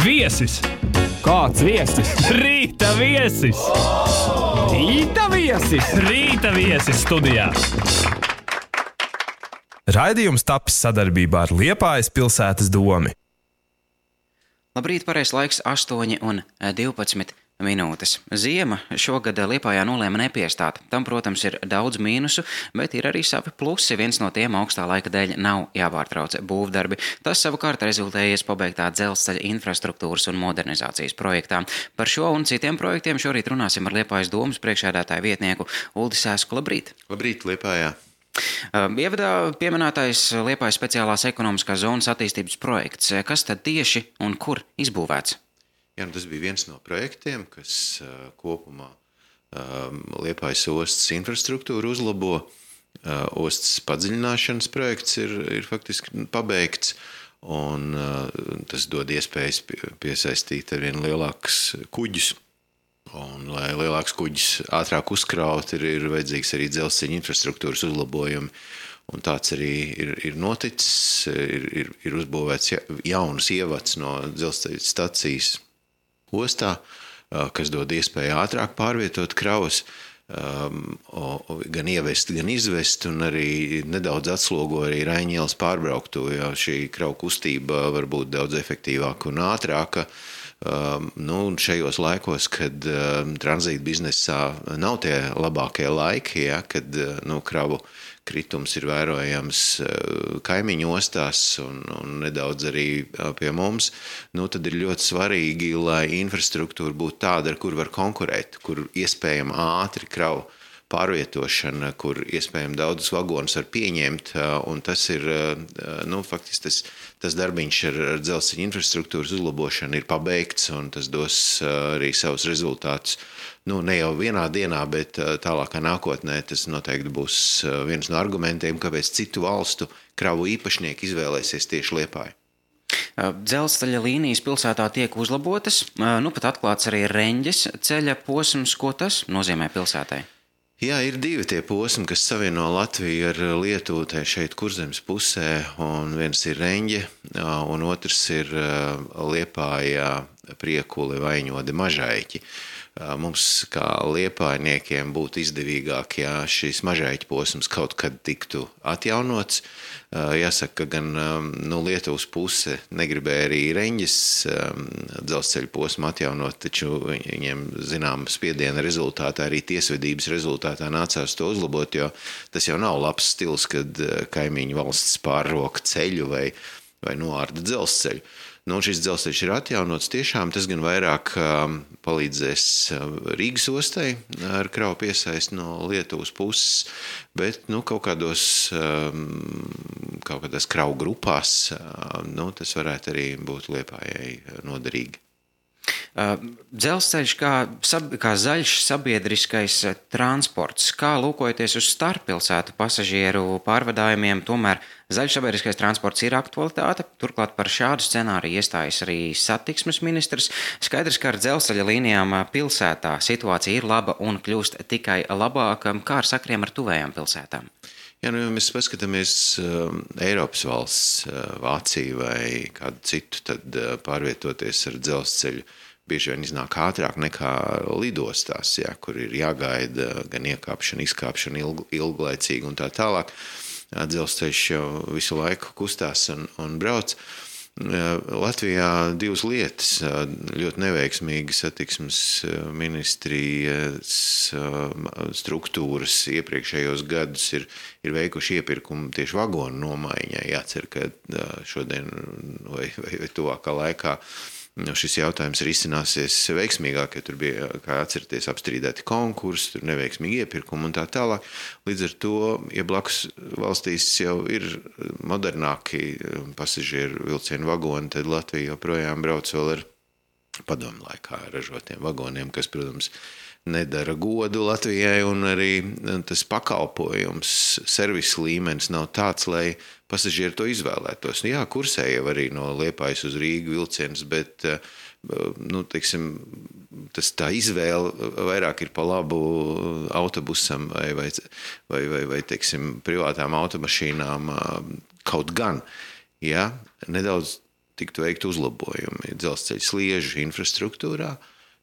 Viesis! Kāds viesis? Rīta viesis! Rīta viesis! Rīta viesis studijā! Raidījums tapis sadarbībā ar Liepājas pilsētas domi. Labrīt, pareizs laiks 8:12. Ziema šogad Liepājā nolēma nepiestāt. Tam, protams, ir daudz mīnusu, bet ir arī savi plusi. Viens no tiem augstā laika dēļ nav jāpārtrauc būvdarbi. Tas savukārt rezultējies pabeigtā dzelzceļa infrastruktūras un modernizācijas projektā. Par šo un citiem projektiem šorīt runāsim ar Liepājas domas priekšsēdētāju vietnieku Uldi Sēsku. Labrīt! Labrīt, Liepājā! Ievadā pieminētais Liepājas speciālās ekonomiskās zonas attīstības projekts. Kas tad tieši un kur izbūvēts? Jā, tas bija viens no projektiem, kas kopumā Liepājas ostas infrastruktūru uzlabo. Ostas padziļināšanas projekts ir faktiski pabeigts, un tas dod iespējas piesaistīt arvien lielākus kuģus. Un, lai lielāks kuģis ātrāk uzkraut, ir vajadzīgs arī dzelzceļa infrastruktūras uzlabojumi. Un tāds arī ir noticis, ir uzbūvēts jaunas ievads no dzelzceļa stacijas ostā, kas dod iespēju ātrāk pārvietot kravas, gan ievest, gan izvest, un arī nedaudz atslogo arī Raiņa ielas pārbrauktu, jo šī kravu kustība var būt daudz efektīvāka un ātrāka. Un šajos laikos, kad tranzīta biznesā nav tie labākie laiki, kad kravu kritums ir vērojams kaimiņu ostās un nedaudz arī pie mums, tad ir ļoti svarīgi, lai infrastruktūra būtu tāda, ar kur var konkurēt, kur iespējama ātri kravu pārvietošana, kur iespējami daudzus vagonus var pieņemt, un tas ir, faktiski tas darbiņš ar dzelzceļa infrastruktūras uzlabošanu ir pabeigts, un tas dos arī savus rezultātus. Ne jau vienā dienā, bet tālākā nākotnē tas noteikti būs viens no argumentiem, kāpēc citu valstu kravu īpašnieki izvēlēsies tieši Liepāju. Dzelzceļa līnijas pilsētā tiek uzlabotas, pat atklāts arī Reņģes ceļa posms. Ko tas nozīmē pilsētai? Jā, ir divi tie posmi, kas savieno Latviju ar Lietuvu šeit Kurzemes pusē, un viens ir Reņģe, un otrs ir Liepājā Priekuli, Vaiņodi, Mažaiķi. Mums kā liepājniekiem būtu izdevīgāk, ja šis Mažaiķi posms kaut kad tiktu atjaunots. Jāsaka, ka gan Lietuvas puse negribēja arī Reņģes dzelzceļa posmu atjaunot, taču viņiem zinām spiediena rezultātā, arī tiesvedības rezultātā nācās to uzlabot, jo tas jau nav labs stils, kad kaimiņu valsts pārroka ceļu vai noārda dzelzceļu. Šis dzelzceļš ir atjaunots tiešām, tas gan vairāk palīdzēs Rīgas ostai ar kravu piesaisti no Lietuvas puses, bet kaut kādās kravu grupās tas varētu arī būt Liepājai noderīgi. Dzelzceļš kā zaļš sabiedriskais transports, kā lūkojoties uz starppilsētu pasažieru pārvadājumiem, tomēr zaļš sabiedriskais transports ir aktualitāte. Turklāt par šādu scenāriju iestājas arī satiksmes ministrs. Skaidrs, ka ar dzelzceļa līnijām pilsētā situācija ir laba un kļūst tikai labāka. Kā ar sakriem ar tuvējām pilsētām? Ja mēs paskatāmies Eiropas valsts, Vāciju vai kādu citu, tad pārvietoties ar dzelzceļu bieži vien iznāk ātrāk nekā lidostās, kur ir jāgaida gan iekāpšana, izkāpšana ilglaicīgi un tā tālāk. Dzelzceļš jau visu laiku kustās un brauc. Latvijā divas lietas ļoti neveiksmīgi satiksmes ministrijas struktūras iepriekšējos gadus ir veikuši iepirkumu tieši vagonu nomaiņai. Jācer, ka šodien vai tuvākā laikā šis jautājums risināsies veiksmīgāk, jo tur bija, kā atcerieties, apstrīdēti konkursi, tur neveiksmīgi iepirkumi un tā tālāk. Līdz ar to, ja blakus valstīs jau ir modernāki pasažieru vilcienu vagoni, tad Latvija joprojām brauc vēl ar padomu laikā ražotiem vagoniem, kas, protams, nedara godu Latvijai, un arī tas pakalpojums, servisa līmenis nav tāds, lai pasažieri to izvēlētos. Jā, kursē jau arī no Liepājas uz Rīgu vilciens, bet tā izvēle vairāk ir pa labu autobusam vai privātām automašīnām kaut gan. Ja, nedaudz tiktu veikt uzlabojumi dzelzceļa sliežu infrastruktūrā,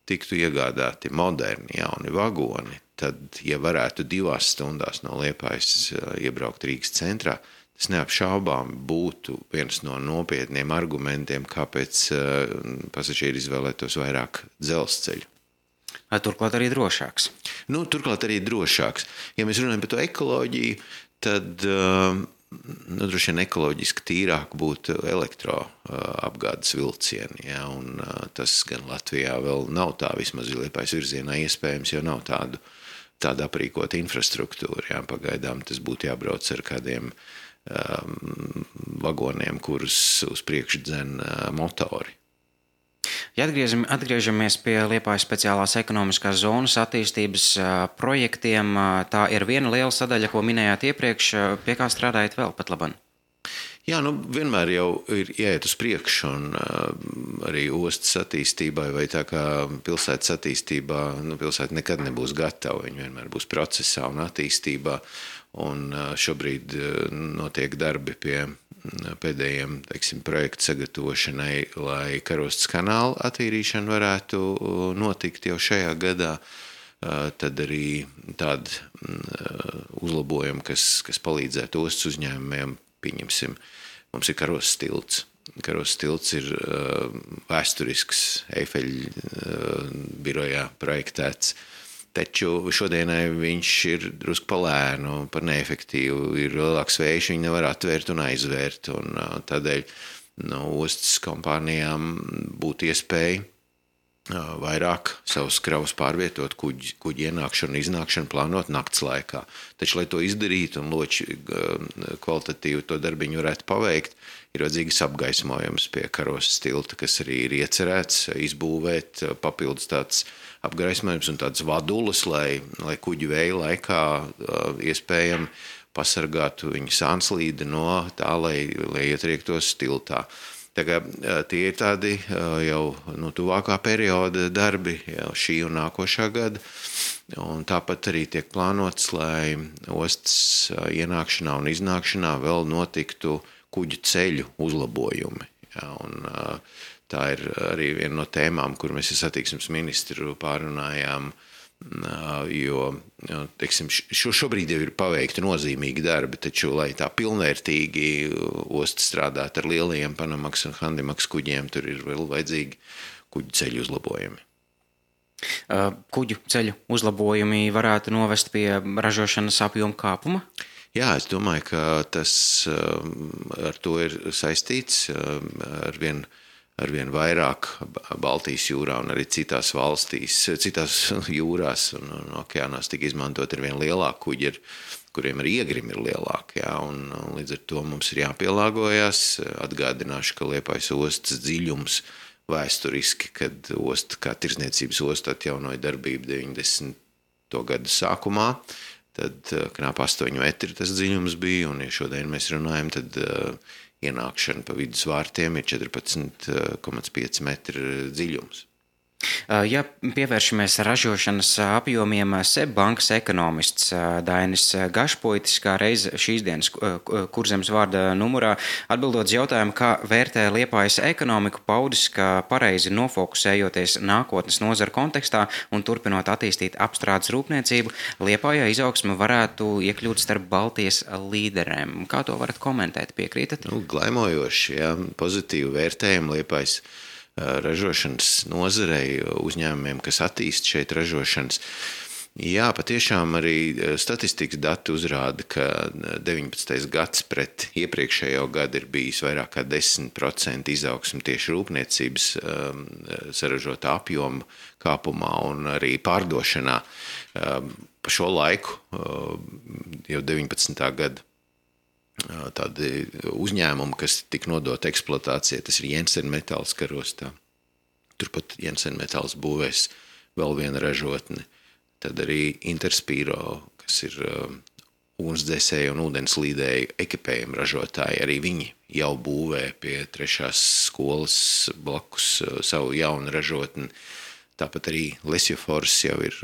tiktu iegādāti moderni jauni vagoni, tad, ja varētu 2 stundās no Liepājas iebraukt Rīgas centrā, tas neapšaubām būtu viens no nopietniem argumentiem, kāpēc pasažieri izvēlētos vairāk dzelzceļu. Turklāt arī drošāks. Turklāt arī drošāks. Ja mēs runājam par to ekoloģiju, tad droši vien ekoloģiski tīrāk būtu elektroapgādes vilcieni. Ja, un tas gan Latvijā vēl nav tā, vismaz Liepājas virzienā iespējams, jo nav tāda aprīkota infrastruktūra. Ja, pagaidām tas būtu jābrauc ar kādiem vagoniem, kurus uz priekšu dzen motori. Ja atgriežamies pie Liepājas speciālās ekonomiskās zonas attīstības projektiem, tā ir viena liela sadaļa, ko minējāt iepriekš, pie kā strādājat vēl pat labam? Jā, vienmēr jau ir jāiet uz priekšu, un arī ostas attīstībai vai tā kā pilsētas attīstībā, pilsēta nekad nebūs gatava, viņa vienmēr būs procesā un attīstībā, un šobrīd notiek darbi pie pēdējiem, projektu sagatavošanai, lai Karostas kanāla attīrīšana varētu notikt jau šajā gadā. Tad arī tādi uzlabojumi, kas palīdzētu ostas uzņēmumiem, pieņemsim, mums ir Karostas tilts. Karostas tilts ir vēsturisks Eifeļa birojā projektēts, taču šodienai viņš ir drusku palēnu, par neefektīvu, ir lielāks vējš, viņi nevar atvērt un aizvērt, un tādēļ ostas kompānijām būtu iespēja vairāk savus kravus pārvietot, kuģi ienākšanu un iznākšanu plānot nakts laikā. Taču, lai to izdarītu un loči kvalitatīvi to darbiņu varētu paveikt, ir vajadzīgs apgaismojums pie Karostas tilta, kas arī ir iecerēts izbūvēt papildus tāds apgaismojums un tāds vadulas, lai kuģi vēja laikā iespējami pasargātu viņa sānslīdi no tā, lai ietriektos tiltā. Tā kā tie ir tādi jau tuvākā perioda darbi, jau šī un nākošā gada, un tāpat arī tiek plānots, lai ostas ienākšanā un iznākšanā vēl notiktu kuģu ceļu uzlabojumi. Ja, un tā ir arī viena no tēmām, kur mēs ar satiksmes ministru pārunājām, jo, teiksim, šobrīd jau ir paveikti nozīmīgi darbi, taču, lai tā pilnvērtīgi osta strādāt ar lielajiem Panamax un Handimax kuģiem, tur ir vēl vajadzīgi kuģu ceļu uzlabojumi. Kuģu ceļu uzlabojumi varētu novest pie ražošanas apjoma kāpuma? Jā, es domāju, ka tas ar to ir saistīts arvien vairāk Baltijas jūrā un arī citās valstīs, citās jūrās un okeānās tika izmantot arvien lielāki kuģi, kuriem arī iegrimi ir lielāki. Jā, un līdz ar to mums ir jāpielāgojas. Atgādināšu, ka Liepājas ostas dziļums vēsturiski, kad osta kā tirdzniecības osta atjaunoja darbību 90. gadu sākumā, tad knap 8 metri tas dziļums bija, un ja šodien mēs runājam, tad ienākšana pa vidus vārtiem ir 14,5 metri dziļums. Ja pievēršamies ražošanas apjomiem, SEB bankas ekonomists Dainis Gašpoitis, kā reiz šīs dienas Kurzemes vārda numurā, atbildot uz jautājumu, kā vērtē Liepājas ekonomiku, paudis, ka pareizi nofokusējoties nākotnes nozara kontekstā un turpinot attīstīt apstrādes rūpniecību, Liepājā izaugsme varētu iekļūt starp Baltijas līderēm. Kā to varat komentēt? Piekrītat? Glaimojoši, jā, pozitīvi vērtējumu Liepājas ražošanas nozarei, uzņēmumiem, kas attīst šeit ražošanas. Jā, patiešām arī statistikas dati uzrāda, ka 19. gads pret iepriekšējo gadu ir bijis vairāk kā 10% izaugsme tieši rūpniecības saražotā apjoma kāpumā un arī pārdošanā. Pa šo laiku, jau 19. gada, tādi uzņēmumi, kas tika nodota eksploatācijai, tas ir Jensen Metāls Karostā. Turpat Jensen Metāls būvēs vēl viena ražotne. Tad arī Interspiro, kas ir ugunsdzēsēju un ūdenslīdēju ekipējumu ražotāji, arī viņi jau būvē pie 3. skolas blakus savu jaunu ražotni. Tāpat arī Lesiofors jau ir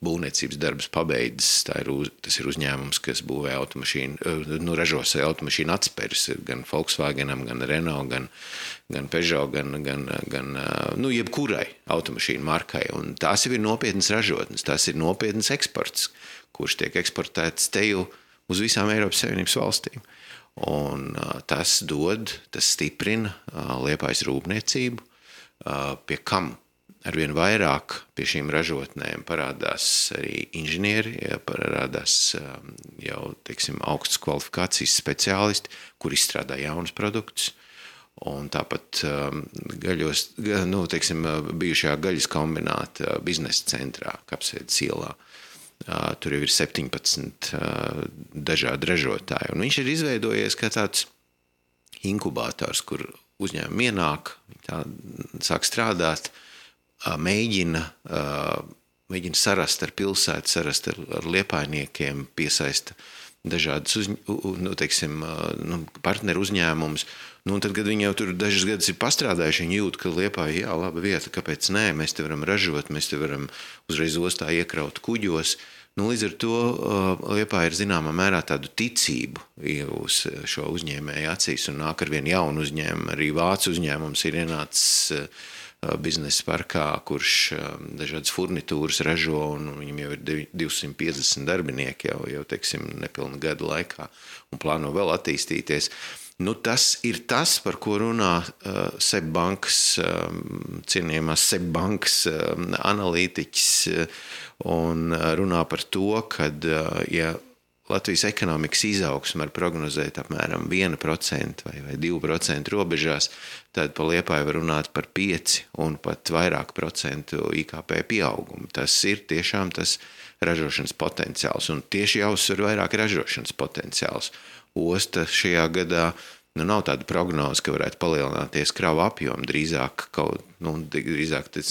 būvniecības darbus pabeidzis. Tas ir uzņēmums, kas būvē ražos automašīnu atspērs gan Volkswagenam, gan Renault, gan Peugeot, gan jebkurai automašīnu markai. Un tās jau ir nopietnas ražotnes, tās ir nopietnas eksports, kurš tiek eksportēts te jau uz visām Eiropas Savienības valstīm. Un tas stiprina Liepājas rūpniecību, pie kam arvien vairāk pie šīm ražotnēm parādās arī inženieri, parādās jau, augstas kvalifikācijas speciālisti, kur izstrādā jaunus produktus. Un tāpat bijušajā gaļas kombināta biznesa centrā, Kapsēdes ielā. Tur jau ir 17 dažādi ražotāji. Un viņš ir izveidojies kā tāds inkubators, kur uzņēmumi ienāk, sāk strādāt, mēģina sarast ar pilsētu, sarast ar liepājniekiem, piesaista dažādas partneru uzņēmumus. Un tad, kad viņi jau tur dažas gadus ir pastrādājuši, viņi jūt, ka Liepāja, laba vieta, kāpēc nē, mēs te varam ražot, mēs te varam uzreiz ostā iekraut kuģos. Līdz ar to Liepāja ir zināmā mērā tādu ticību uz šo uzņēmēju acīs un nāk ar vien jaunu uzņēmumu. Arī vācu uzņēmums ir ienācis biznesa parkā, kurš dažādas furnitūras ražo, un viņam jau ir 250 darbinieki jau nepilna gada laikā un plāno vēl attīstīties. Tas ir tas, par ko runā SEB bankas, cienījamās SEB bankas analītiķis, un runā par to, kad, ja Latvijas ekonomikas izaugsme var prognozēt apmēram 1% vai 2% robežās, tad pa Liepāju var runāt par 5 un pat vairāk procentu IKP pieaugumu. Tas ir tiešām tas ražošanas potenciāls, un tieši jāuzsver vairāk ražošanas potenciāls. Osta šajā gadā nav tāda prognoze, ka varētu palielināties kravu apjomu. Drīzāk tas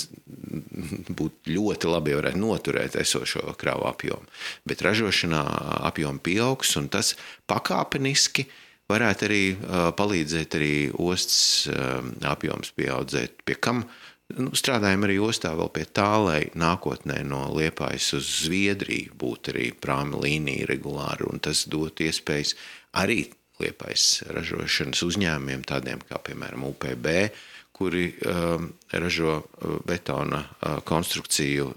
būtu ļoti labi, ja varētu noturēt esošo kravu apjomu. Bet ražošanā apjomu pieaugs, un tas pakāpeniski varētu arī palīdzēt arī ostas apjoms pieaudzēt, pie kam strādājam arī ostā vēl pie tā, lai nākotnē no Liepājas uz Zviedriju būtu arī prāmi līnija regulāri, un tas dot iespējas arī Liepājas ražošanas uzņēmumiem, tādiem kā, piemēram, UPB, kuri ražo betona konstrukciju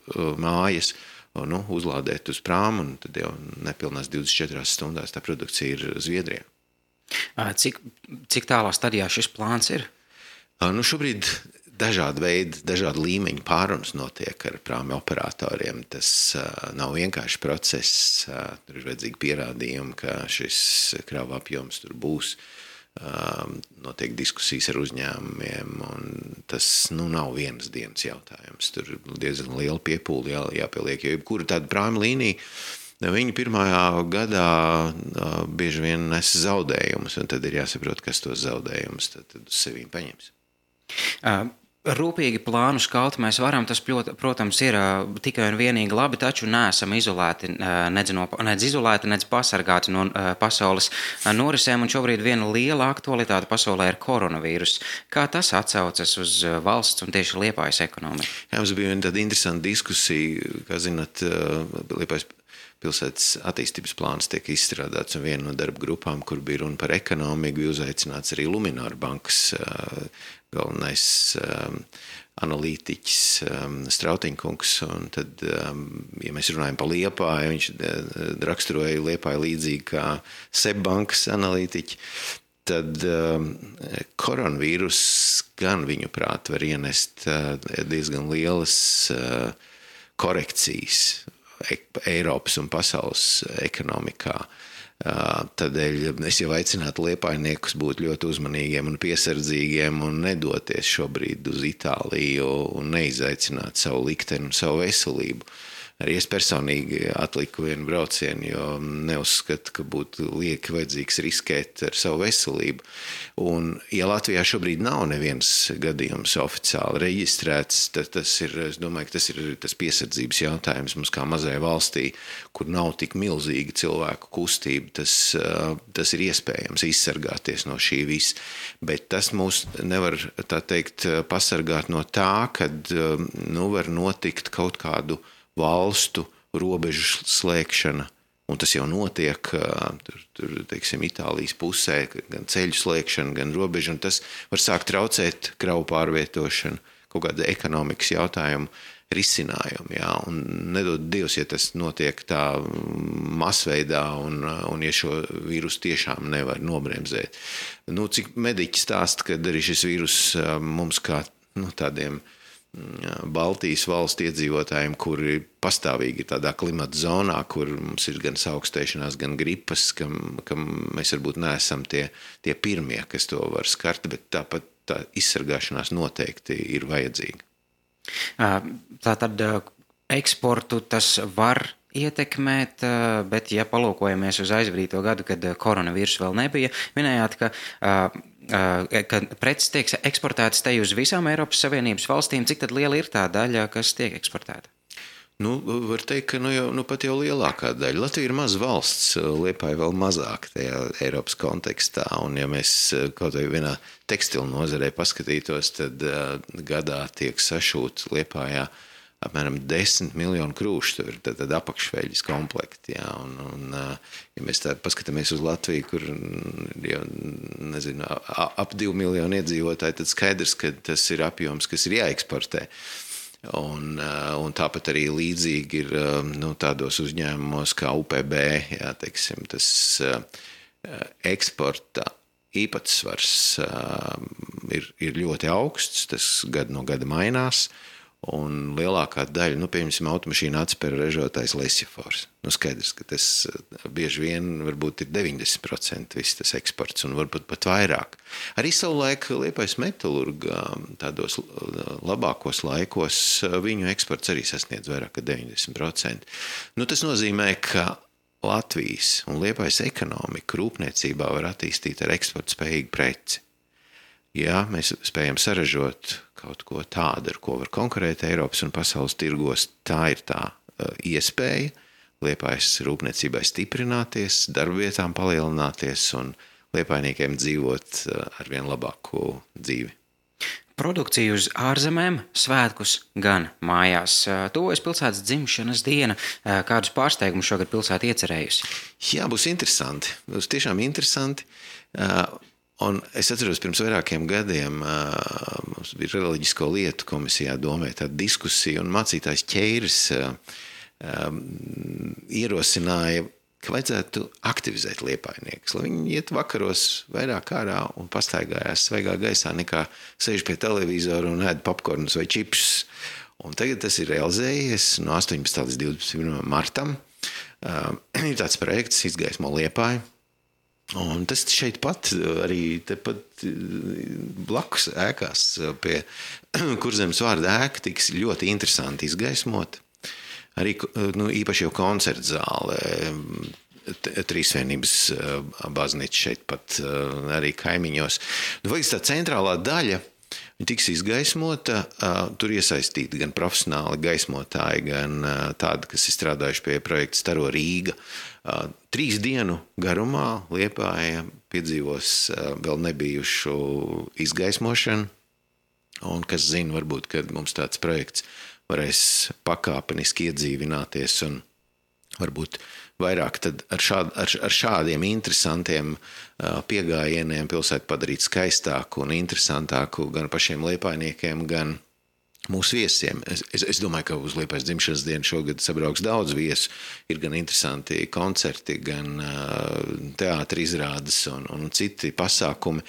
mājas, uzlādēt uz prāmu, un tad jau nepilnās 24 stundās tā produkcija ir Zviedrijā. Cik tālā stadijā šis plāns ir? Šobrīd dažādi veidi, dažādi līmeņi pārunas notiek ar prāmi operatoriem. Tas nav vienkārši process. Tur ir vajadzīgi pierādījumi, ka šis krava apjoms tur būs. Notiek diskusijas ar uzņēmumiem, un tas nav vienas dienas jautājums. Tur diezgan liela piepūle jāpieliek, jo jebkura tāda prāmi līnija, viņi pirmajā gadā bieži vien nes zaudējumus, un tad ir jāsaprot, kas tos zaudējumus tad uz sevīm paņems. Rūpīgi plānu skalt mēs varam, tas, protams, ir tikai un vienīgi labi, taču neesam izolēti, nedz pasargāti no pasaules norisēm, un šobrīd viena liela aktualitāte pasaulē ir koronavīrus. Kā tas atsaucas uz valsts un tieši Liepājas ekonomiku? Mums bija tāda interesanta diskusija, kā zināt, Liepājas pilsētas attīstības plāns tiek izstrādāts, un viena no darba grupām, kur bija runa par ekonomiku, bija uzaicināts arī Luminor bankas galvenais analītiķis Strautiņkungs, un tad, ja mēs runājam par Liepāju, viņš raksturoja Liepāju līdzīgi kā SEB bankas analītiķi, tad koronavīrus gan viņu prāt var ienest diezgan lielas korekcijas Eiropas un pasaules ekonomikā. Tādēļ es jau aicinātu liepājniekus būt ļoti uzmanīgiem un piesardzīgiem un nedoties šobrīd uz Itāliju un neizaicināt savu likteni un savu veselību. Arī es personīgi atliku vienu braucienu, jo neuzskatu, ka būtu lieki vajadzīgs riskēt ar savu veselību. Un, ja Latvijā šobrīd nav neviens gadījums oficiāli reģistrēts, tad es domāju, ka tas ir tas piesardzības jautājums mums kā mazai valstī, kur nav tik milzīga cilvēku kustība, tas ir iespējams izsargāties no šī visa. Bet tas mūs nevar, tā teikt, pasargāt no tā, kad var notikt kaut kādu valstu robežu slēgšana, un tas jau notiek teiksim, Itālijas pusē, gan ceļu slēgšana, gan robežu, un tas var sākt traucēt kravu pārvietošanu, kaut kāda ekonomikas jautājumu risinājumu, jā, un nedod Dievs, ja tas notiek tā masveidā, un ja šo vīrusu tiešām nevar nobremzēt. Cik mediķi stāsta, kad arī šis vīrus mums kā tādiem Baltijas valstu iedzīvotājiem, kuri pastāvīgi ir tādā klimata zonā, kur mums ir gan augstēšanās, gan gripas, kam mēs varbūt neesam tie pirmie, kas to var skart, bet tāpat tā izsargāšanās noteikti ir vajadzīga. Tātad eksportu tas var ietekmēt, bet ja palūkojamies uz aizvadīto gadu, kad koronavīrus vēl nebija, minējāt, ka preces tiek eksportētas te uz visām Eiropas Savienības valstīm. Cik tad liela ir tā daļa, kas tiek eksportēta? Var teikt, ka pat jau lielākā daļa. Latvija ir maza valsts, Liepāja vēl mazāk tajā Eiropas kontekstā, un ja mēs kaut vai vienā tekstilu nozarē paskatītos, tad gadā tiek sašūt Liepājā apmēram 10 miljonu krūšu, tur tad apakšveļas komplekti, jā, un ja mēs tā paskatāmies uz Latviju, kur jau, nezinu, ap 2 miljonu iedzīvotāji, tad skaidrs, ka tas ir apjoms, kas ir jāeksportē. Un tāpat arī līdzīgi ir tādos uzņēmumos kā UPB, jā, teiksim, tas eksporta īpatsvars ir ļoti augsts, tas gadu no gada mainās, un lielākā daļa, piemēram, automašīna atspēra ražotājs Lesjafors. Skaidrs, ka tas bieži vien varbūt ir 90% viss tas eksports, un varbūt pat vairāk. Arī savulaik Liepājas metalurga tādos labākos laikos viņu eksports arī sasniedz vairāk kā 90%. Tas nozīmē, ka Latvijas un Liepājas ekonomika rūpniecībā var attīstīt ar eksporta spējīgu preci. Ja mēs spējam saražot kaut ko tādu, ar ko var konkurēt Eiropas un pasaules tirgos, tā ir tā iespēja Liepājas rūpniecībai stiprināties, darbvietām palielināties un liepājniekiem dzīvot ar vien labāku dzīvi. Produkcija uz ārzemēm, svētkus gan mājās. Tuvojas pilsētas dzimšanas diena. Kādus pārsteigumus šogad pilsēta iecerējusi? Jā, būs interesanti. Būs tiešām interesanti. Un es atceros, pirms vairākiem gadiem mums bija reliģisko lietu komisijā domē tāda diskusija, un mācītājs Ķeiris ierosināja, ka vajadzētu aktivizēt liepājniekus, lai viņi iet vakaros vairāk ārā un pastaigājās svaigā gaisā, nekā sēž pie televizora un ēd popkornus vai čipsus. Un tagad tas ir realizējies no 18. līdz 21. martam. Ir tāds projekts Izgaismo Liepāju. Un tas šeit pat arī tepat blakus ēkās pie Kurzemes vārda ēka tiks ļoti interesanti izgaismot. Arī īpaši jau koncerta zāle, Trīsvienības baznīca šeit pat arī kaimiņos. Tā centrālā daļa tiks izgaismota, tur iesaistīti gan profesionāli gaismotāji, gan tādi, kas ir strādājuši pie projekta Staro Rīga. 3 dienu garumā Liepāja piedzīvos vēl nebijušu izgaismošanu, un kas zina, varbūt, kad mums tāds projekts varēs pakāpeniski iedzīvināties un varbūt vairāk tad ar šādiem interesantiem piegājieniem pilsētu padarīt skaistāku un interesantāku gan pašiem liepājniekiem, gan mūsu viesiem. Es domāju, ka uz Liepājas dzimšanas dienu šogad sabrauks daudz viesu. Ir gan interesanti koncerti, gan teātri izrādes un citi pasākumi.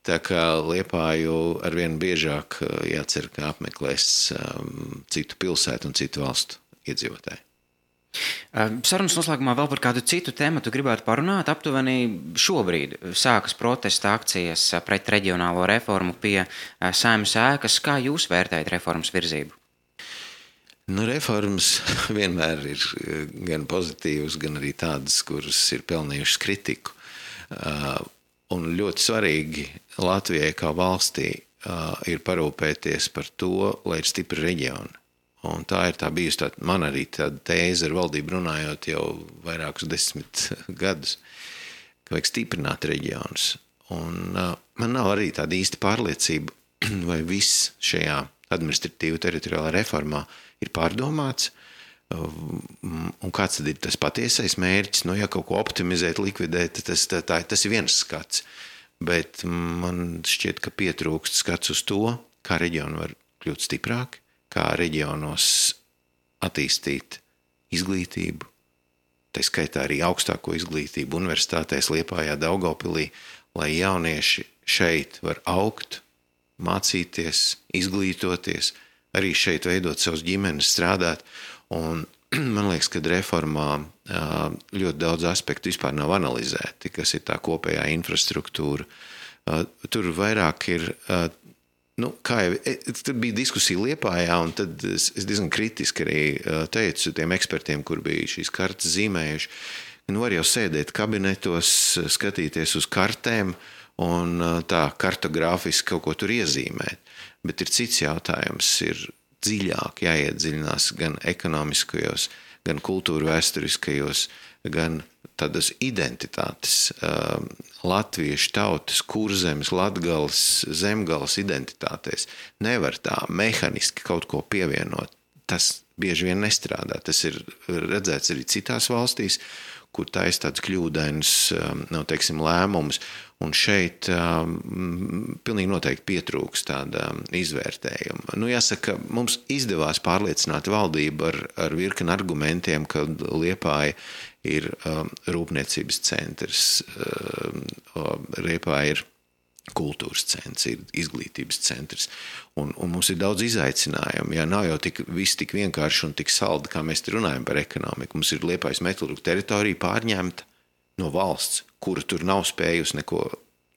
Tā kā Liepāju arvien biežāk jācer, ka apmeklēs citu pilsētu un citu valstu iedzīvotāji. Sarunas noslēgumā vēl par kādu citu tematu gribētu parunāt. Aptuveni šobrīd sākas protesta akcijas pret reģionālo reformu pie Saeimas ēkas. Kā jūs vērtējat reformas virzību? Nu, reformas vienmēr ir gan pozitīvas, gan arī tādas, kuras ir pelnījušas kritiku. Un ļoti svarīgi Latvijai kā valstī ir parūpēties par to, lai ir stipri reģioni. Un tā ir bijusi man arī tāda tēze ar valdību runājot jau vairākus 10 gadus, ka vajag stiprināt reģionus. Un man nav arī tāda īsta pārliecība, vai viss šajā administratīvu teritoriālā reformā ir pārdomāts, un kāds tad ir tas patiesais mērķis. Nu, ja kaut ko optimizēt, likvidēt, tas ir viens skats, bet man šķiet, ka pietrūkst skats uz to, kā reģioni var kļūt stiprāki, kā reģionos attīstīt izglītību, tā skaitā arī augstāko izglītību universitātēs Liepājā, Daugavpilī, lai jaunieši šeit var augt, mācīties, izglītoties, arī šeit veidot savus ģimenes, strādāt. Un man liekas, ka reformā ļoti daudz aspektu vispār nav analizēti, kas ir tā kopējā infrastruktūra. Tur vairāk ir, tur bija diskusija Liepājā, un tad es diezgan kritiski arī teicu tiem ekspertiem, kur bija šīs kartas zīmējuši, var jau sēdēt kabinetos, skatīties uz kartēm un tā kartogrāfiski kaut ko tur iezīmēt. Bet ir cits jautājums, ir dziļāk jāiedziļinās gan ekonomiskajos, gan kultūra vēsturiskajos, gan tādas identitātes, latviešu tautas, Kurzemes, Latgales, Zemgales identitātēs. Nevar tā mehaniski kaut ko pievienot. Tas bieži vien nestrādā. Tas ir redzēts arī citās valstīs, kur taisa tāds kļūdains, lēmums. Un šeit pilnīgi noteikti pietrūks tāda izvērtējuma. Jāsaka, mums izdevās pārliecināt valdību ar virkni argumentiem, ka Liepāja ir rūpniecības centrs, Liepāja ir kultūras centrs, ir izglītības centrs. Un mums ir daudz izaicinājumu. Nav jau viss tik vienkārši un tik saldi, kā mēs te runājam par ekonomiku. Mums ir Liepājas metalurgu teritorija pārņemta no valsts, kura tur nav spējusi neko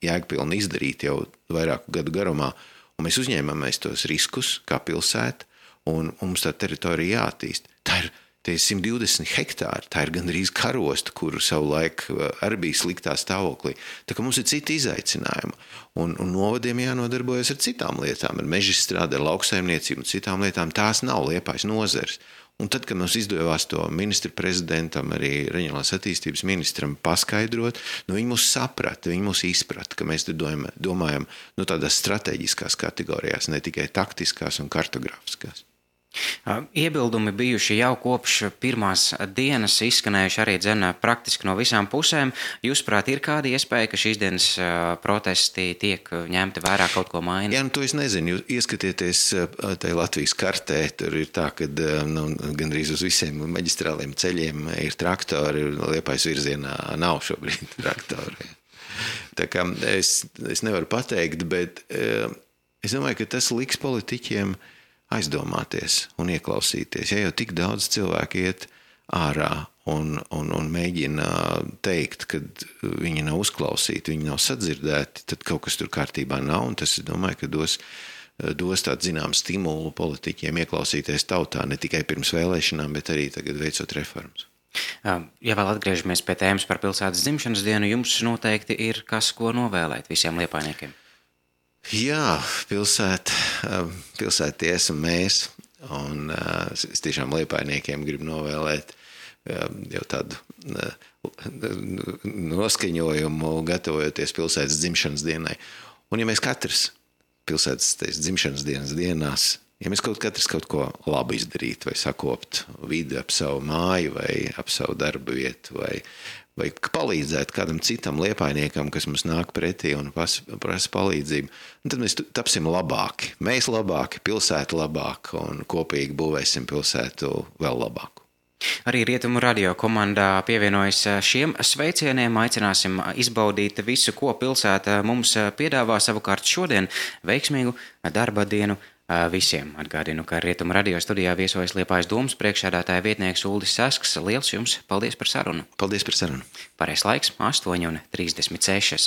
jēgpilni izdarīt jau vairāku gadu garumā. Un mēs uzņēmamies tos riskus kā pilsēta, un mums tā teritorija jāattīst. Tā ir 120 hektāri, tā ir gandrīz karosta, kuru savulaik arī bija sliktā stāvoklī. Tā kā mums ir citi izaicinājumi, un novadiem jānodarbojas ar citām lietām, ar mežstrādi, ar lauksaimniecību un citām lietām. Tās nav Liepājas nozares. Un tad, kad mums izdevās to ministra prezidentam, arī reģionālās attīstības ministram paskaidrot, viņi mūs saprata, viņi mūs izprata, ka mēs domājam tādās strateģiskās kategorijās, ne tikai taktiskās un kartogrāfiskās. Iebildumi bijuši jau kopš pirmās dienas, izskanējuši arī praktiski no visām pusēm. Jūsuprāt, ir kāda iespēja, ka šīs dienas protesti tiek ņemti vērā, kaut ko maina? To es nezinu. Jūs ieskatieties tajā Latvijas kartē, tur ir tā, ka gandrīz uz visiem maģistrāliem ceļiem ir traktori, Liepājas virzienā nav šobrīd traktori. Tā kā es nevaru pateikt, bet es domāju, ka tas liks politiķiem aizdomāties un ieklausīties. Ja jau tik daudz cilvēku iet ārā un mēģina teikt, ka viņi nav uzklausīti, viņi nav sadzirdēti, tad kaut kas tur kārtībā nav, un tas, es domāju, ka dos tādu zinām stimulu politiķiem ieklausīties tautā, ne tikai pirms vēlēšanām, bet arī tagad veicot reformas. Ja vēl atgriežamies pie tēmas par pilsētas dzimšanas dienu, jums noteikti ir kas, ko novēlēt visiem liepājniekiem. Jā, pilsētie esam mēs, un es tiešām liepājniekiem gribu novēlēt jau tādu noskaņojumu, gatavojoties pilsētas dzimšanas dienai. Un ja mēs katrs pilsētas dzimšanas dienas dienās, ja mēs katrs kaut ko labu izdarītu, vai sakopt vidi ap savu māju, vai ap savu darba vietu, vai palīdzēt kādam citam liepājniekam, kas mums nāk pretī un prasa palīdzību, un tad mēs tapsim labāki. Mēs labāki, pilsēta labāka, un kopīgi būvēsim pilsētu vēl labāku. Arī Rietumu radio komandā pievienojas šiem sveicieniem. Aicināsim izbaudīt visu, ko pilsēta mums piedāvā. Savukārt šodien veiksmīgu darba dienu visiem. Atgādinu, ka Rietumu radio studijā viesojas Liepājas domas priekšsēdētāja vietnieks Uldis Sasks. Liels jums paldies par sarunu. Paldies par sarunu. Pareizais laiks 8:36.